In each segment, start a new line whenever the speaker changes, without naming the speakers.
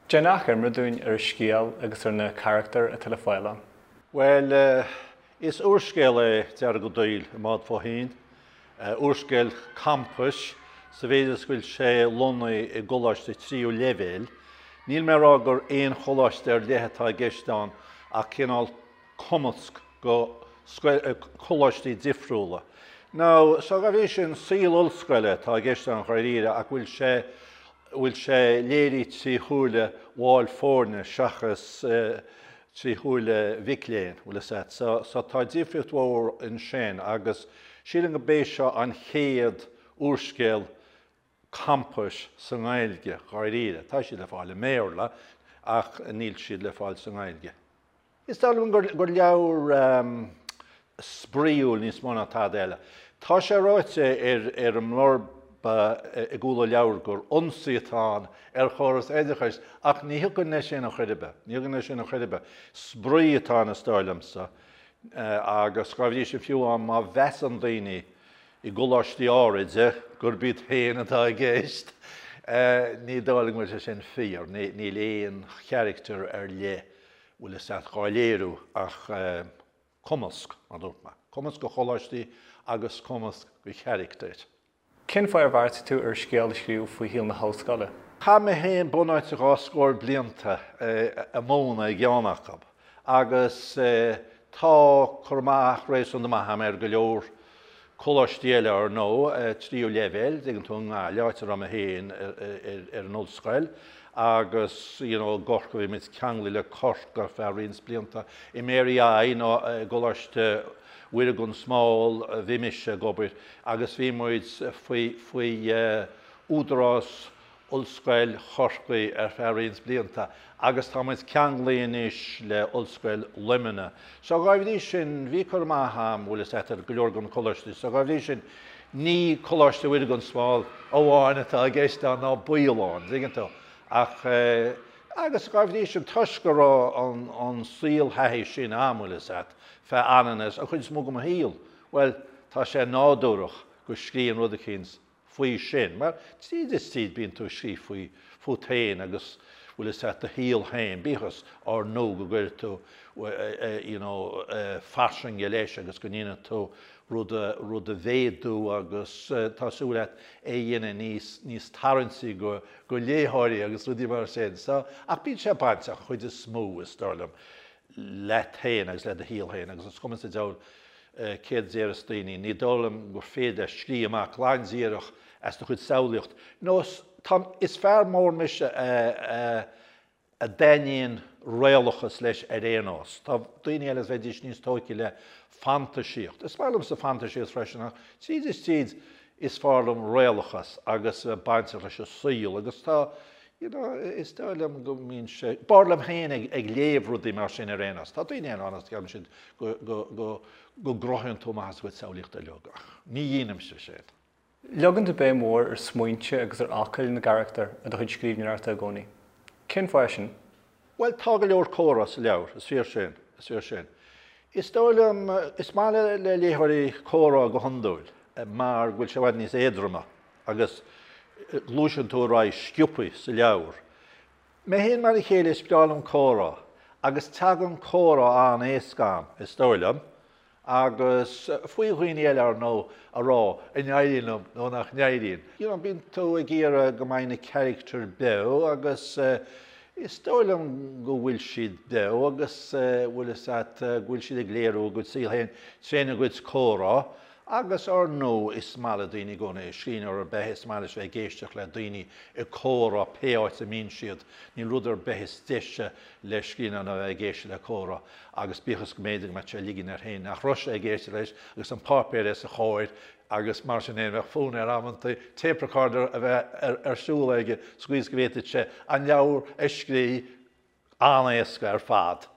Déan achoimre dúinn ar an scéal agus ar na carachtair atá le fáil ann.
Bhuel, is úrscéal é Deargadh Daill i mBád fó Thoinn. Úrscéal campais sa mhéid is go bhfuil sé lonnaithe i gcoláiste tríú leibhéil. Níl mé ag rá gur aon choláiste ar leith atá i gceist ann ach cineál cumasc go coláistí difriúla. Now, so dá bhrí sin, saol ollscoile atá i gceist ann dháiríre ach bhfuil sé bhfuil sé léirithe trí shúile bhaill foirne seachas trí shúile mhic léinn, bhfuil fhios a't. So, so tá difríocht mhór ansin agus sílim go b'é seo an chéad úrscéal campais sa nGaeilge, dháiríre. Tá siad le fáil i mBéarla ach níl siad le fáil sa nGaeilge. Is dóigh liom gur leabhar spraíúil níos mó ná tada eile. Tá sé ráite ar an mblurb i gcúl an leabhair gur ionsaí atá ann ar chóras oideachais ach ní thiocfainn leis sin ar chor ar bith. Ní thiocfainn leis sin ar chor ar bith. Spraoi atá ann is dóigh liomsa agus dá bhrí sin fiú amháin má mheasann daoine i gcoláistí áiride gurb iad féin atá i gceist. Ní dóigh liom go bhfuil sé sin fíor. Níl aon charachtar ar leith bhfuil fhios a't dhá léiriú ach cumasc, mar a dúirt mé. Cumasc de choláistí agus cumasc de charachtair.
Cén fáth ar bheartaigh tú ar scéal a scríobh faoi shaol na hollscoile?
Chaith mé féin bunáite dhá scór blianta ag múineadh i gceann acu agus tá cur amach réasúnta maith agam ar go leor coláistí eile ar ndóigh, tríú leibhéal, dtuigeann tú, i nGaillimh, áit a raibh mé féin ar an ollscoil agus you know i gCorcaigh, bhí muid ceanglaithe le Corcaigh ar feadh roinnt blianta. I Mary I nó i gColáiste Mhuire gan Smál bhí mise ag obair agus bhí muid faoi faoi údarás Ollscoil Chorcaí ar feadh roinnt blianta agus tá muid ceanglaithe anois le Ollscoil Luimnigh. So dhá bhrí sin, bhí cur amach a'm, bhfuil fhios a'd, ar go leor de na coláistí. So dhá bhrí sin, ní Coláiste Mhuire gan Smál amháin atá i gceist ann ná baol ann, dtuigeann tú. Ach, agus dhá bhrí sin, toisc go raibh an, an saolthaithí sin a'm, bhfuil fhios a'd, feadh anonn is, an chuid is mó de mo shaol, bhuel, tá sé nádúrach go scríobhfainn rud eicínt faoi sin, mar tríd is tríd bíonn tú ag scríobh faoi, fút féin agus bhfuil fhios a'd, do shaol féin, bíodh is ár ndóigh go gcuireann tú you know fairsinge leis agus go ndéanann tú rud a, rud a mhéadú agus tá súil a't é a dhéanamh níos, níos tarraingtí go, go léitheoirí agus rudaí mar sin. So, ach bíonn sé bainteach, an chuid is mó, is dóigh liom, leat féin agus le do shaol féin agus is cuma sa diabhal céard a déarfas daoine, ní dóigh liom gur féidir leat scríobh amach glan díreach as do chuid samhlaíocht. Nó tá, is fear mór mise a a dtaitníonn réalachas leis ar aon nós. Tá daoine eile a bheidís níos tóigthe le fantaisíocht. Is maith liomsa fantaisíocht freisin ach tríd is tríd is fearr liom réalachas agus a bheith bainteach leis an saol agus tá You know, is dóigh liom go mbíonn sé, b'fhearr liom féin ag léamh rudaí mar sin ar aon nós. Tá daoine eile ann agus ceapann siad go, go, go, go gcruthaíonn tú amach as do chuid samhlaíochta uilig ach ní dhéanaimse sin.
Leagann tú béim mhór ar smaointe agus ar fhocail na gcarachtar i do chuid scríbhneoireachta i gcónaí. Cén fáth é sin?
Bhuel, tá go leor comhrá sa leabhar, is fíor sin, is fíor sin. Is dóigh liom, is maith le, le léitheoirí comhrá go hiondúil mar go bhfuil sé i bhfad níos éadroma. agus gluaiseann tú ar aghaidh sciobtha sa leabhar. Mé féin mar a chéile, is breá liom comhrá, agus tagann comhrá an-éasca a'm, is dóigh liom, agus faoi dhaoine eile, ar ndóigh, a rá an n-éiríonn liom nó nach n-éiríonn. You know, bíonn tú ag iarraidh go mbeidh na carachtair beo agus is dóigh liom go bhfuil siad beo agus bhfuil fhios a't go bhfuil siad ag léiriú a gcuid saoil féin tréna gcuid comhrá Agus, ár ndóigh, is maith le daoine i gcónaí, scríbhneoir ar bith, is maith leis bheith ag éisteacht le daoine ag comhrá pé áit a mbíonn siad. Níl rud ar bith is deise le scríbhneoir ná bheith ag éisteacht le comhrá agus bíodh is go mb'fhéidir go mbeadh sé ag ligean air féin nach raibh sé ag éisteacht leis agus an páipéar os a chomhair agus mar sin féin bheadh fonn air amantaí tape recorder a bheith ar siúl aige sa gcaoi is go bhféadfadh sé an leabhar a scríobh an-éasca ar fad.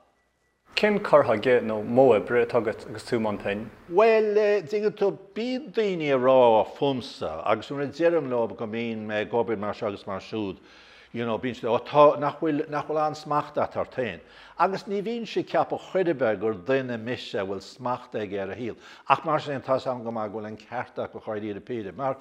Cén cur chuige nó modh oibre atá agat agus tú i mbun pinn?
Bhuel, dtuigeann tú, bíonn daoine ag rá fúmsa agus nuair a deirim leo go mbíonn mé ag obair mar seo agus mar siúd, you know, bíonn siad, oh tá, nach bhfuil, nach bhfuil an-smacht a't ort féin. Agus ní bhínnse ag ceapadh chor ar bith gur duine mise a bhfuil smacht aige ar a shaol. Ach mar sin féin, tá's a'm go maith go bhfuil an ceart acu dháiríre píre, mar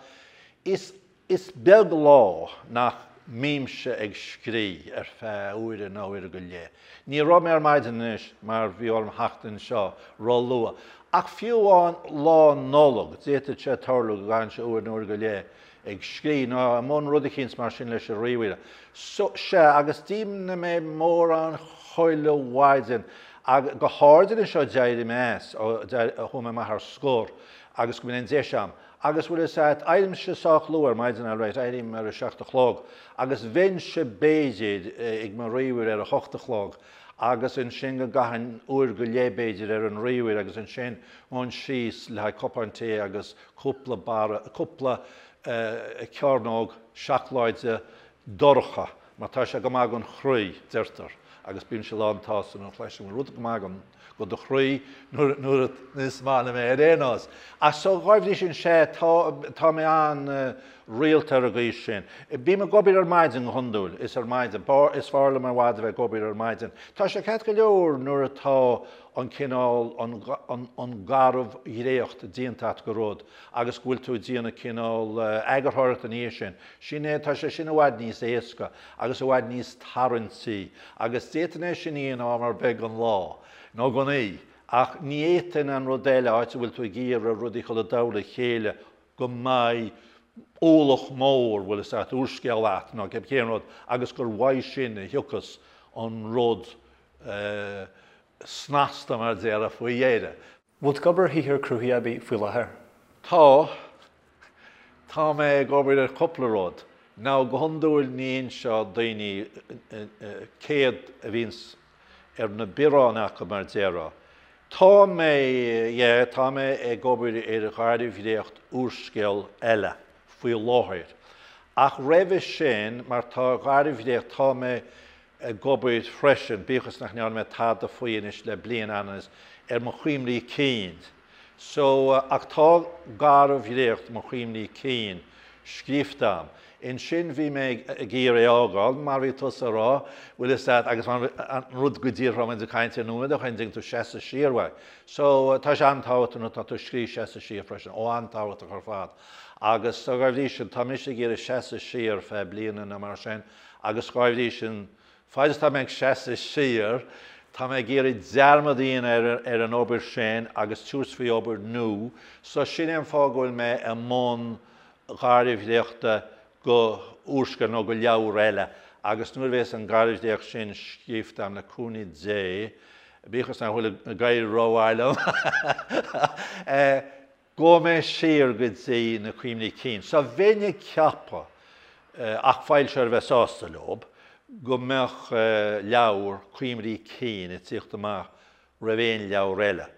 is, Is beag lá nach Mbímse ag scrí ar feadh uaire nó uaire go leith. Ní raibh mé ar maidin anois mar bhí orm theacht anseo ró-luath. Ach fiú amháin Lá Nollag, d'fhéadfadh sé tarlú go gcaithfinnse uair nó uair go leith ag scrí nó i mbun rud eicínt mar sin leis an ríomhaire. So, sea, agus déanann mé mórán chuile mhaidin, ag, go háirid anois ó d'éirigh mé as, ó chuaigh mé amach ar scor agus go mbíonn an deis a'm. Agus bhfuil fhios a'd, éirímse sách luath ar maidin alright, éirím ar a seacht a chlog, agus bheinnse b'fhéidir ag mo ríomhaire ar a hocht a chlog, agus ansin go gcaithfinn uair go leith b'fhéidir ar an ríomhaire agus ansin ghabhfainn síos le haghaidh cupán tae agus cúpla barra, cúpla cearnóg seacláide dorcha, mar tá sé go maith don chroí, deirtear, agus bímse lán tsásta nuair a chloisim rud go maith do do chroí nuair is maith liom é ar aon nós. Ach so dhá bhrí sin sea, tá, tá mé an-rialta ar an gcaoi sin. Bím ag obair ar maidin go hiondúil, is ar maidin, is fearr liom i bhfad a bheith ag obair ar maidin. Tá sé ceart go leor nuair atá an cineál, an, an, an garbhdhréacht déanta agat de rud agus go bhfuil tú ag déanamh cineál eagarthóireachta ina dhiaidh sin. Sin é, tá sé sin i bhfad níos éasca agus i bhfad níos tarraingtí agus d'fhéadfainn é sin a dhéanamh am ar bith den lá nó den oíche ach ní fhéadfainn an rud eile, áit a bhfuil tú ag iarraidh rudaí a chur i dtoll a chéile go mbeidh ualach mór, bhfuil fhios a't, úrscéal a't nó cén rud agus gur uaidh sin a thiocfas an rud snasta mar a déarfá faoi dheireadh.
Bhfuil tú ag obair ar shaothar cruthaithe ar bith faoi láthair?
Tá. Tá mé ag obair ar chúpla rud. Now go hiondúil ní inseodh daoine céard a bhíonns ar na bioráin acu mar déarfá. Tá mé, yeah, tá mé ag obair ar gharbhdhréacht úrscéal eile faoi láthair. Ach roimhe sin, mar tá garbhdhréacht, tá mé ag obair freisin, bíodh is nach ndearna mé tada faoi anois le bliain anuas, ar mo chuimhní cinn. So, ach tá garbhdhréacht mo chuimhní cinn scríofa a'm. Ansin bhí mé ag iarraidh é a fhágáil, mar bhí tusa a rá, bhfuil fhios a't, agus mar an rud go díreach a raibh muid ag caint air nóiméad ó shin, dtuigeann tú, seasamh siar uaidh. So, tá sé an-tábhachtach nuair atá tú ag scríobh seasamh siar freisin, ó an-tábhachtach ar fad. Agus dá bhrí sin, tá mise ag iarraidh seasamh siar feadh bliana nó mar sin, Agus dhá bhrí sin, faid is atá mé ag seasamh siar, tá mé ag iarraidh dearmad a dhéanamh ar an obair sin agus tabhairt faoi obair nua. So sin é an fáth go bhfuil mé i mbun garbhdhréachta go úrscéal nó go leabhar eile. Agus nuair a bhéas an garbhdhréacht sin scríofa agam le cúnamh Dé, bíodh is nach bhfuil ag éirí rómhaith liom, Gabhfaidh mé siar go dtí na cuimhní cinn. So bheinn ag ceapadh, ach foilsitheoir a bheith sásta leob, go mbeadh leabhar cuimhní cinn ag tíocht amach roimh aon leabhar eile.